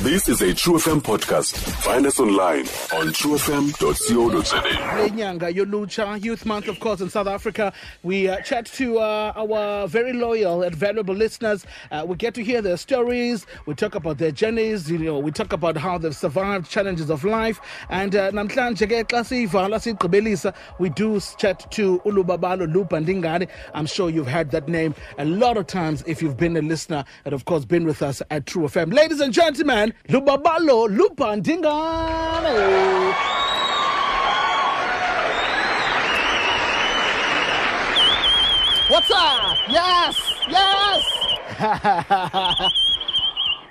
This is a True FM podcast. Find us online on truefm.co.za. Lenyanga yolutsha, Youth Month, of course, in South Africa. We chat to our very loyal and valuable listeners. We get to hear their stories. We talk about their journeys. We talk about how they've survived challenges of life. And namhlanje ke xa siyivala siyigqibelisa, we do chat to uLubabalo Luba Ndingane. I'm sure you've heard that name a lot of times if you've been a listener and, of course, been with us at True FM. Ladies and gentlemen, Lubabalo Luba Ndingane. What's up? Yes, yes.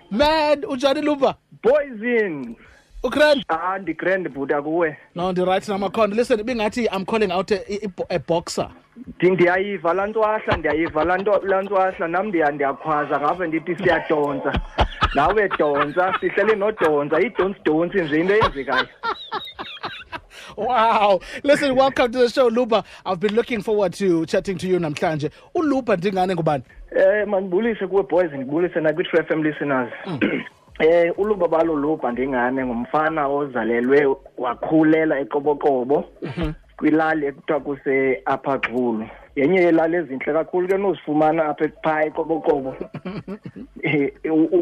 Man, unjani Luba? Poison. Ugrand? Ah, ndigrand bhuti akuwe. No, ndi-right namakhona. Listen, ibingathi I'm calling out a boxer. Ndiyayiva laa ntwahla, ndiyayiva laa ntwahla, nam ndiyakhwaza ngapha ndithi siyadonsa. Nawe donsa, sihlele nodonsa, idonsi-donsi nje into eyenzekayo. Wow. Listen, welcome to the show, Luba. I've been looking forward to chatting to you namhlanje. ULuba Ndingane ngubani? Mandibulise kuwe boys, ndibulise nakwi-True FM listeners. uLubabalo Luba Ndingane ngumfana ozalelwe wakhulela eQoboqobo. Kwilali ekuthiwa kuse Upper Xulu. Yenye yelali ezintle kakhulu ke nozifumana apha phaa eQoboqobo.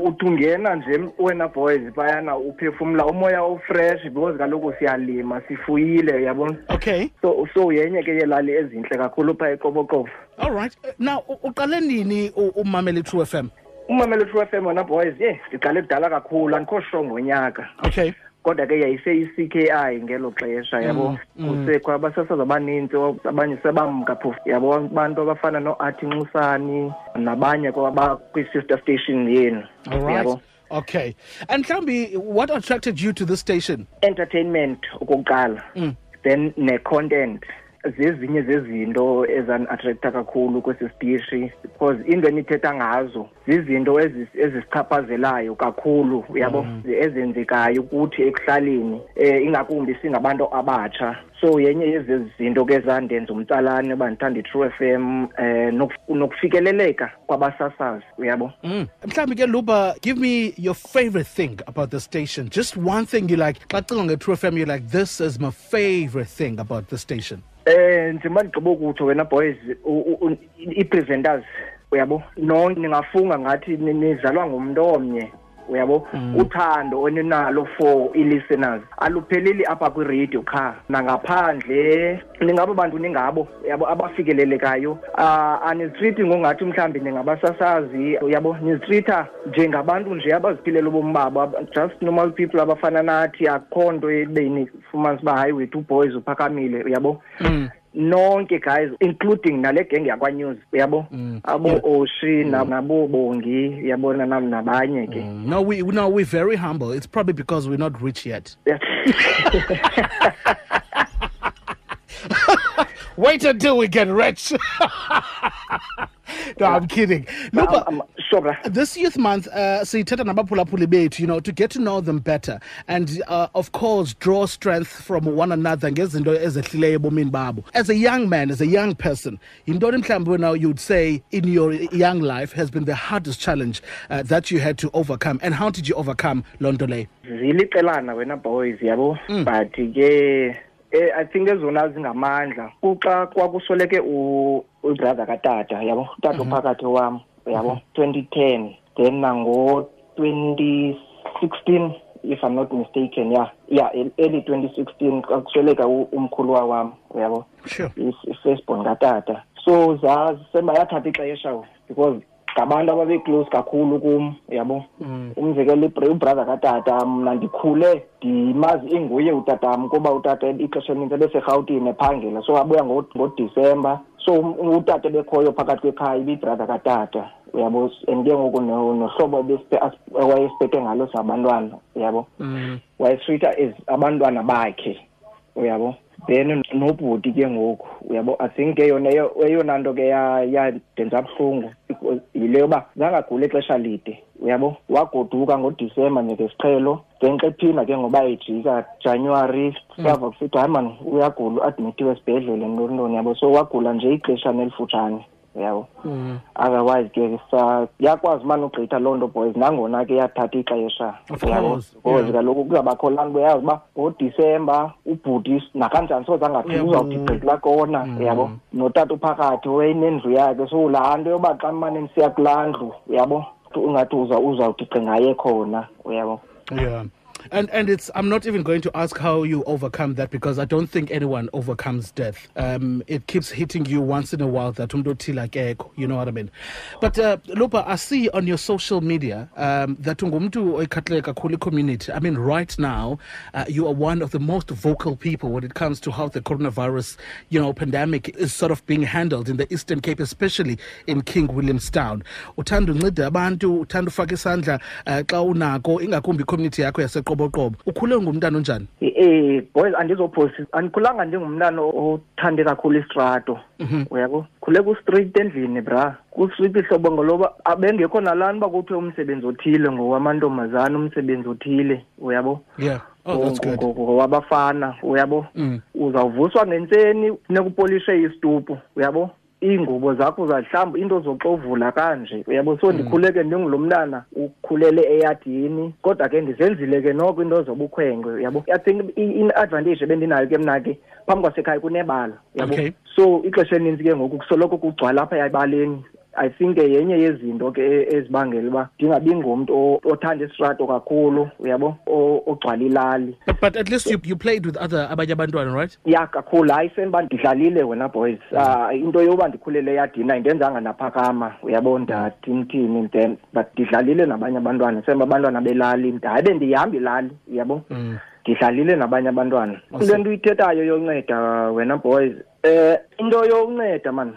Uthi ungena nje wena boys phayana uphefumla umoya ofresh because kaloku siyalima sifuyile, uyabona. Okay. So yenye ke yelali ezintle kakhulu phaa eQoboqobo. All right. Now uqale nini umamela iTrue FM? Umamela iTrue FM wena boys, ndiqale kudala kakhulu, andikho sure ngonyaka. Okay. Kodwa ke yayise-I-C K I ngelo xesha, yabo. Kusekho abasasazi abanintsi, abanye sebamka phofu, yabo, abantu abafana no-Athi Nxusani nabanye kwabakwi-sister station yenu. All right. Yabo. Okay. And mhlawumbi, what attracted you to this station? Entertainment okokuqala. Then ne-content. Zezinye zezinto ezan-attracta kakhulu kwesi sitishi, because into enithetha ngazo zizinto ezisichaphazelayo kakhulu, uyabo, ezenzekayo kuthi ekuhlaleni, ingakumbi singabantu abatsha. So yenye yezi zinto ke zandenza umtsalane uba ndithanda iTrue FM, nokufikeleleka kwabasasazi, uyabo. Mhlawumbi ke Luba, give me your favorite thing about the station. Just one thing you like. Xa ucinga ngeTrue FM, you're like, this is my favorite thing about the station. Njengoba ndigqiba ukutsho wena boys, ii-presenters, uyabo, nonke ningafunga ngathi nizalwa ngumntu omnye, uyabo. Uthando oninalo for ii-listeners alupheleli apha kwiradio qha, nangaphandle ningabo bantu ningabo, uyabo, abafikelelekayo. Anizitreati ngongathi mhlawumbi ningabasasazi, uyabo, nizitreata njengabantu nje abaziphilela ubomi babo, just normal people abafana nathi. Akukho nto ebe nifumanisa uba hayi wethu boys uphakamile, uyabo. Nonke guys, including nale genge yakwa-News, uyabo, abo Oshi, nabo Bongi, uyabona, nam nabanye ke. No, we're very humble. It's probably because we're not rich yet. Wait until we get rich. No, I'm kidding. No, but Sure, bra. This Youth Month, sithetha nabaphulaphuli bethu, to get to know them better and, of course, draw strength from one another ngezinto ezehlileyo ebomini babo. As a young man, as a young person, yintoni mhlawumbi wena you'd say in your young life has been the hardest challenge that you had to overcome, and how did you overcome loo nto leyo? Ziliqelana wena boys, yabo, but ke I think ezona zingamandla kuxa kwakusweleke ubrother katata, yabo, utata ophakathi wam, yabo, 2010, then nango 2016, if I'm not mistaken, yeah, yeah, early 2016 kwakusweleka umkhuluwa wam, uyabo. I-firstborn katata. So zasema yathatha ixesha because ngabantu ababe-close kakhulu kum, uyabo. Umzekelo, ubrother katata, mna ndikhule ndimazi inguye utatam kuba utata ixesha elinintsi ebeseRhawutini ephangela, so abuya ngoDisemba. So utata ebekhoyo phakathi kwekhaya ibibrother katata, uyabo. And ke ngoku nohlobo ewayesiphethe ngalo sabantwana, uyabo. Wayesitreata as abantwana bakhe, uyabo. Then nobhuti ke ngoku, uyabo, I think ke yona eyona nto ke yandenza buhlungu yile yoba zange agule ixesha lide, uyabo. Wagoduka ngoDisemba njengesiqhelo, then xa ephinda ke ngoba ejika January, sava kusithiwa hayi mani uyagula, uadmithiwe esibhedlele ntoni ntoni, yabo. So wagula nje ixeshana elifutshane. uyabo. Otherwise ke yakwazi mani ugqitha loo nto, boys, nangona ke yathatha ixesha, uyabo, because kaloku kuzawubakho laa nto uyazi uba ngoDisemba ubhuti nakanjani soze angaphili, uzawuthi gqi kulaa kona, uyabo, notata uphakathi wayenendlu yakhe. So laa nto yoba xa mane ndisiya kulaa ndlu, uyabo, ungathi uzawuthi gqi ngaye khona, uyabo. Yeah. And it's, I'm not even going to ask how you overcome that, because I don't think anyone overcomes death. It keeps hitting you once in a while that umntu othile akekho, you know what I mean? But Lupa, I see on your social media that ungumntu oyikhathalele kakhulu community. I mean, right now, you are one of the most vocal people when it comes to how the coronavirus, you know, pandemic is sort of being handled in the Eastern Cape, especially in King Williamstown. Uthanda unceda abantu, uthanda ufaka isandla xa unako, ingakumbi community yakho yaseqoboqobo. Ukhule ngumntana onjani? Boys, andizophosi, andikhulanga njengomntana othande kakhulu istrato. Uyabo? Khule ku street endlini, bra. Ku street ihlobo ngoloba abengekho nalani uba kuthiwe umsebenzi othile ngowamantombazana, umsebenzi othile, uyabo? Yeah. Oh, that's good. Ngowabafana, uyabo? Uzawuvuswa ngentseni, funeka upolishe isitupu, uyabo? Iingubo zakho uzahlamba, into zoxovula kanje, uyabo? So ndikhule ke ndingulo mntana ukhulele eyadini, kodwa ke ndizenzile ke noko into zobukhwenkwe, uyabo? I think i-advantage ebendinayo ke mna ke phambi kwasekhaya kunebala, uyabo? Okay. So ixesha elininzi ke ngoku kusoloko kugcwala apha ebaleni. I think yenye yezinto ke ezibangela uba ndingabi ngumntu othanda isitrato kakhulu, uyabo, ogcwala ilali. But at least you played with other abanye abantwana, right? Yeah, kakhulu. Hayi, sendiba ndidlalile wena, boys. Into yoba ndikhulele eyadini ayindenzanga ndaphakama, uyabo, ndathi mthini, then but ndidlalile nabanye abantwana, semba abantwana belali, hayi bendihamba ilali, uyabo. Ndidlalile nabanye abantwana. Awesome. Le nto uyithethayo yonceda wena, boys, into yonceda man,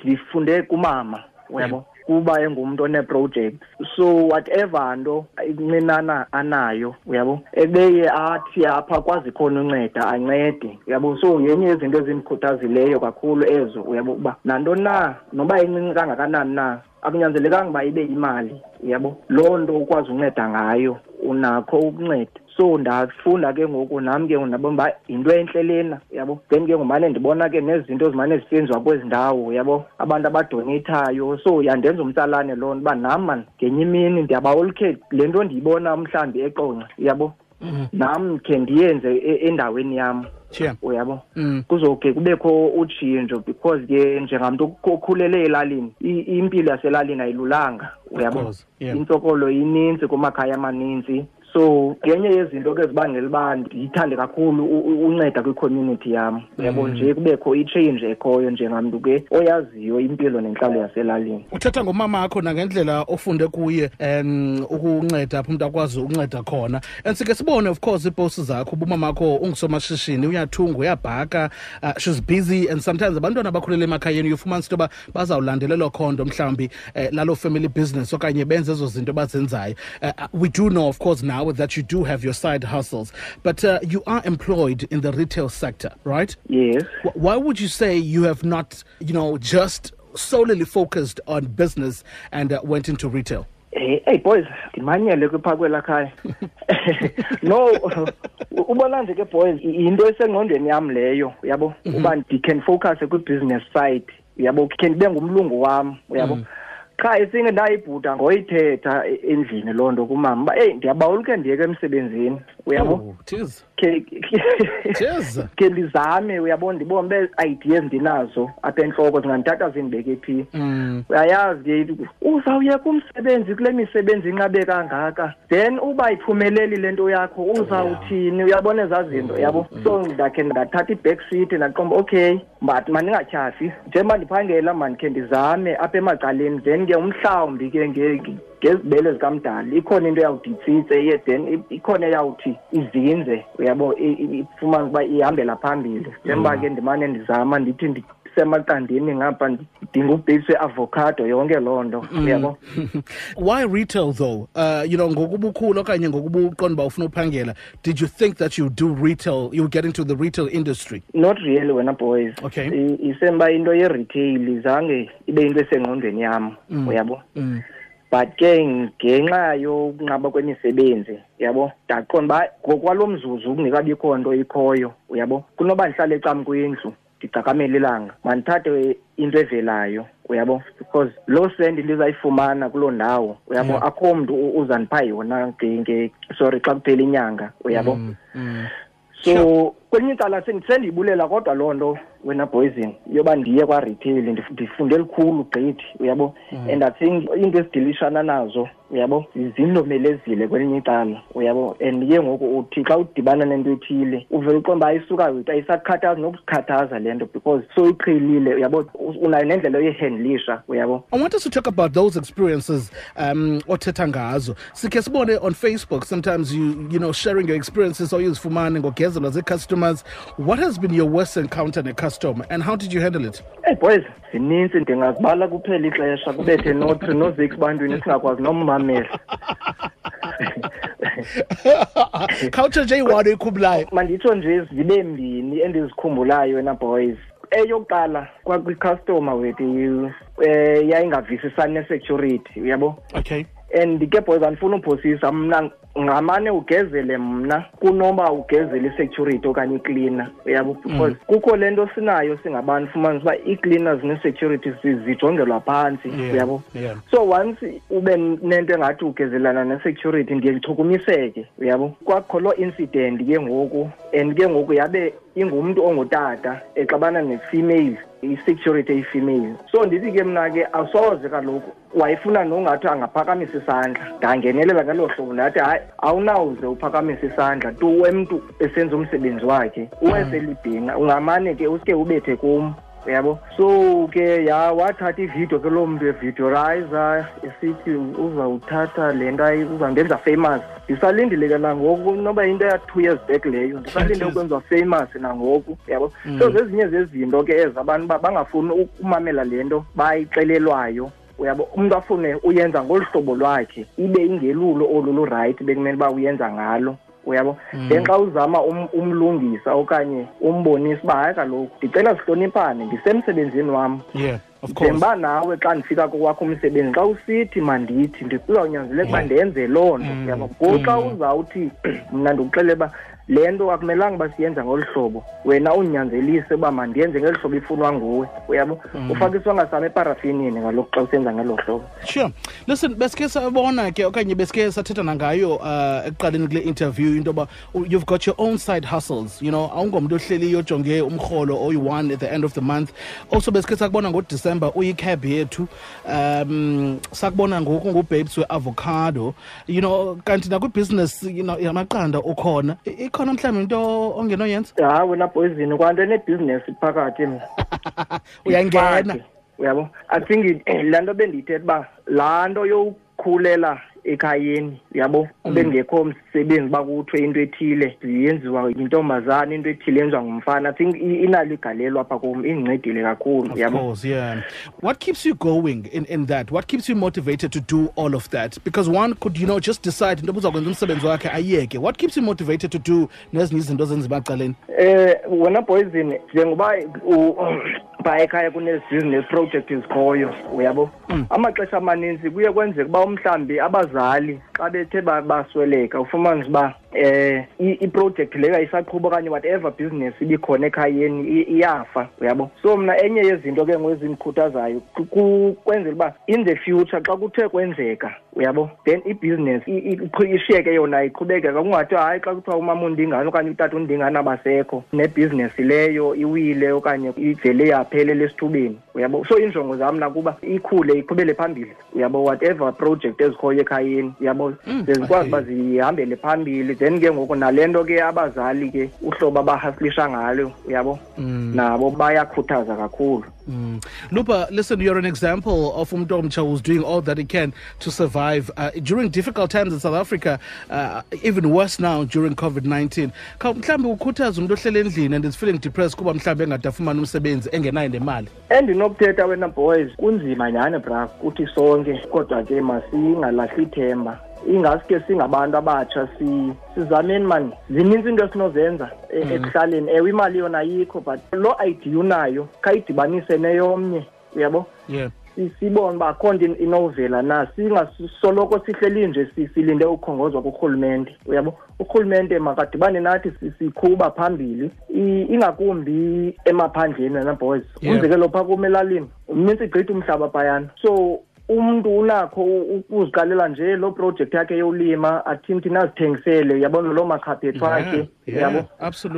ndifunde kumama, uyabo, kuba engumntu one-project. So whatever nto incinana anayo, uyabo, ebeye athi apha kwazi khona unceda, ancede, uyabo. So yenye yezinto ezimkhuthazileyo kakhulu ezo, uyabo, uba nanto na noba incinci kangakanani na, akunyanzelekanga uba ibe imali, uyabo, loo nto ukwazi unceda ngayo, unakho ukunceda. So ndafunda ke ngoku nam ke ndabona uba yinto entle lena, uyabo. Then ke ngumane ndibona ke nezinto ezimane zisenziwa kwezi ndawo, uyabo, abantu abadoneyithayo. So yandenza umtsalane loo nto uba nam man ngenye imini ndiyabawolukhe le nto ndiyibona mhlawumbi eQonce, uyabo, nam khe ndiyenze endaweni yam. Uyabo? Kuzoke kubekho utshintsho, because ke njengamntu okhulele elalini, impilo yaselalini ayilulanga, uyabo? Of course, yeah. Intsokolo ininzi kumakhaya amaninzi. So ngenye yezinto ke ezibangela uba ndiyithande kakhulu unceda kwi-community yam, uyabo, nje kubekho i-change ekhoyo njengamntu ke oyaziyo impilo nentlalo yaselalini. Uthetha ngomama wakho nangendlela ofunde kuye ukunceda apho umntu akwazi ukunceda khona. And sike sibone of course iiposts zakho, uba umama wakho ungusomashishini, uyathunga, uyabhaka, she's busy, and sometimes abantwana abakhulele emakhayeni uyofumanisa into yoba bazawulandela elo khondo mhlawumbi laloo family business okanye benze ezo zinto bazenzayo. We do know of course now that you do have your side hustles, but you are employed in the retail sector, right? Yes. Why would you say you have not, you know, just solely focused on business and went into retail? Hey, hey boys, ndimanyele kwipha kwelaa khaya. No, ubona nje ke boys, yinto esengqondweni yam leyo, uyabo? Uba ndi can focus kwi-business side, uyabo? Khe ndibe ngumlungu wam, uyabo? Qha isinge ndayibhuda ngoyithetha endlini loo nto kumama uba, eyi, ndiyabawela ukhe ndiyeke emsebenzini, uyabo? Oh, cheers. Cheers. Ke ndizame, uyabo, ndibone uba ideas ndinazo apha entloko zingandithatha zindibeke phi. Uyayazi ke, uzawuyeka umsebenzi kule misebenzi inqabe kangaka, then uba iphumeleli le nto yakho uzawuthini, uyabona ezaa zinto, uyabo? So ndakhe ndathatha i-back seat ndaqomba, okay, but mandingatyhafi, njengoba ndiphangela mandikhe ndizame apha emacaleni, then ke umhlawumbi ke ngezibele zikamdali ikhona into eyawuthi itsitse, ye then ikhona eyawuthi izinze, uyabo, ifumane ukuba ihambela phambili. Njengoba ke ndimane ndizama ndithi ndisemaqandeni ngapha ndidinga ubhesi we-avocado, yonke loo nto, uyabo. Why retail though? Ngokubukhulu okanye ngokubuqonda uba ufuna uphangela, did you think that you do retail, you get into the retail industry? Not really wena boys. Isemba into ye-retail zange ibe into esengqondweni yam, uyabo. But ke ngenxa yokunqaba kwemisebenzi, uyabo, ndaqonda uba ngokwalo mzuzu kungekabikho nto ikhoyo, uyabo, kunoba ndihlale ecam kwindlu, ndicakamele ilanga, mandithathe into evelayo, uyabo, because loo sendi ndizayifumana kuloo ndawo, uyabo, akho mntu uzandipha yona sorry xa kuphela inyanga, uyabo. So kwelinye icala sendiyibulela kodwa loo nto wena Poison yoba ndiye kwa-retail, ndifunde lukhulu gqithi, uyabo. And I think into esidilishana nazo, uyabo, zindomelezile kwelinye icala, uyabo. And ke ngoku uthi xa udibana nento ethile uvele uqonda uba ayisuka ayisakukhathazi nokukhathaza le nto because soyiqhelile, uyabo, unayo nendlela oyihandlisha, uyabo. I want us to talk about those experiences othetha ngazo. Sikhe sibone on Facebook sometimes you know sharing your experiences oyizifumane ngogezelwa zii-customers. What has been your worst encounter ne-customer and how did you handle it? Hey boys, zininzi, ndingazibala kuphela ixesha kubethe no-3 no-6 bantwini singakwazi nommamela. Culture nje iyi-one oyikhumbulayo? Manditsho nje zibe mbini endizikhumbulayo wena boys. Eyokuqala kwakwi-customer wethu yayingavisisani ne-security, uyabo. Okay. And ke boys, andifuna uphosisa mna, ngamane ugezele mna kunoba ugezele i-security okanye i-cleaner, uyabo, because kukho le nto sinayo singabantu, fumanisa uba ii-cleaners ne-security zijongelwa phantsi, uyabo. So once ube nento engathi ugezelana ne-security ndiye ndichukumiseke, uyabo. Kwakho loo incident ke ngoku, and ke ngoku yabe ingumntu ongutata exabana ne-female, i-security eyi-female. So ndithi ke mna ke asoze kaloku, wayefuna nongathi angaphakamisa isandla, ndangenelela ngelo hlobo ndathi hayi, awunawuze uphakamise isandla tu emntu esenza umsebenzi wakhe, uweselibhinqa, ungamane ke uske ubethe kum, uyabo. So ke wathatha ividiyo ke loo mntu evideorizer esithi uzawuthatha le nto uzawundenza famous. Ndisalindile ke nangoku, noba into ya-2 years back leyo, ndisalinde ukwenziwa famous nangoku, uyabo. So zezinye zezinto ke ezi abantu bangafuni ukumamela le nto bayixelelwayo, uyabo. Umntu afune uyenza ngolu hlobo lwakhe, ibe ingelulo olu lu-right bekumele uba uyenza ngalo, uyabo. Then xa uzama umlungisa okanye umbonisa uba hayi kaloku ndicela sihloniphane, ndisemsebenzini wam. Yeah, of course. Njengoba nawe xa ndifika kokwakho umsebenzi, xa usithi mandithi ndizawunyanzeleka uba ndenze loo nto, uyabo. Ngoku xa uzawuthi mna ndikuxelele uba le nto akumelanga uba siyenza ngolu hlobo, wena unyanzelise uba mandiyenze ngeli hlobo ifunwa nguwe, uyabo. Ufake isonka sam eparafinini kaloku xa usenza ngelo hlobo. Sure. Listen, besike sabona ke okanye besike sathetha nangayo ekuqaleni kule interview into yoba you've got your own side hustles, you know, awungomntu ohleliyo ojonge umrholo oyi-one at the end of the month. Also besike sakubona ngoDisemba uyi-cab yethu, sakubona ngoku ngubabes we-avocado, you know, kanti nakwibusiness, you know, yamaqanda ukhona. Ikhona mhlawumbi into ongenoyenza? Hayi wena Poison, kwanto enebhizinesi phakathi mna. Uyangena. Uyabo? I think laa nto bendiyithetha uba laa nto yokukhulela ekhayeni, uyabo, bengekho msebenzi uba kuthiwe into ethile yenziwa yintombazana, into ethile yenziwa ngumfana. I think inalo igalelo apha kum, indincedile kakhulu, Of uyabo. course, yeah. What keeps you going in that? What keeps you motivated to do all of that? Because one could, you know, just decide into yoba uzakwenza umsebenzi wakhe ayeke. What keeps you motivated to do nezinye izinto ezenziwa ecaleni? Wena Poison, njengoba phaa ekhaya kunezi-business project ezikhoyo, uyabo. Amaxesha amaninzi kuye kwenzeka uba umhlawumbi abazali xa bethe basweleka, ufumanise uba i-project leyo ayisaqhuba okanye whatever business ibikhona ekhayeni iyafa, uyabo. So mna enye yezinto ke ngoku ezindikhuthazayo kwenzela uba in the future xa kuthe kwenzeka, uyabo, then i-business ishiyeke yona iqhubekeka, kungathiwa hayi xa kuthiwa umama undingana okanye utata undingana abasekho, nebhizinesi leyo iwile okanye ivele yaphelela esithubeni, uyabo. So iinjongo zam nakuba ikhule iqhubele phambili, uyabo, whatever project ezikhoyo ekhayeni, uyabo, ze zikwazi uba zihambele phambili. Then ke ngoku nale nto ke abazali ke uhlobo abahaslisha ngalo, uyabo, nabo bayakhuthaza kakhulu. Lupa, listen, you're an example of umntu omtsha who's doing all that he can to survive during difficult times in South Africa, even worse now during COVID-19. Mhlawumbi ukhuthaza umntu ohleli endlini and is feeling depressed kuba mhlawumbi engade afumane umsebenzi engenayo nemali. Endinokuthetha wena boys, kunzima nyhani bra kuthi sonke, kodwa ke masingalahli ithemba. Ingaske singabantu abatsha sizameni man, zininzi into esinozenza ekuhlaleni. Ewe, imali yona ayikho, but loo idea unayo khayidibanise neyomnye, uyabo? Sibone uba akho nto inovela na, singasoloko sihleli nje silinde ukhongozwa kurhulumente, uyabo. Urhulumente makadibane nathi sikhuba phambili, ingakumbi emaphandleni wena boys. Umzekelo phaa kum elalini mnintsi gqithi umhlaba phayana, so umntu unakho ukuziqalela nje loo project yakhe yolima, athini azithengisele, yabona, loo makhaphethu akhe, yabo.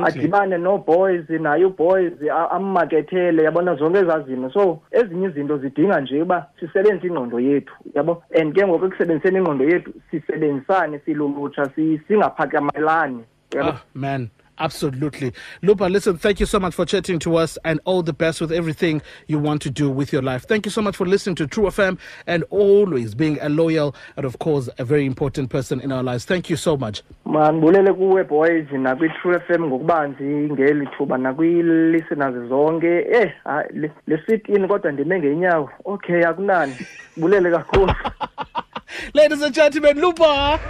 Adibane no-boys, naye uboys ammakethele, yabona, zonke ezaa zinto. So ezinye izinto zidinga nje uba sisebenzise ingqondo yethu, yabo, and ke ngoku ekusebenziseni ingqondo yethu sisebenzisane silulutsha, singaphakamelani, yabo. Ah, man. Absolutely. Luba, listen, thank you so much for chatting to us and all the best with everything you want to do with your life. Thank you so much for listening to True FM and always being a loyal and, of course, a very important person in our lives. Thank you so much. Mandibulele kuwe boys nakwi-True FM ngokubanzi ngeli thuba nakwi-listeners zonke. Hayi, le sit-in kodwa ndime ngeenyawo. Okay, akunani. Bulele kakhulu. Ladies and gentlemen, Luba!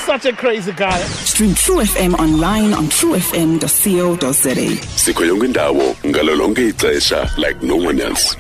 Such a crazy guy. Stream True FM online on truefm.co.za. Sikho yonke indawo ngalo lonke ixesha like no one else.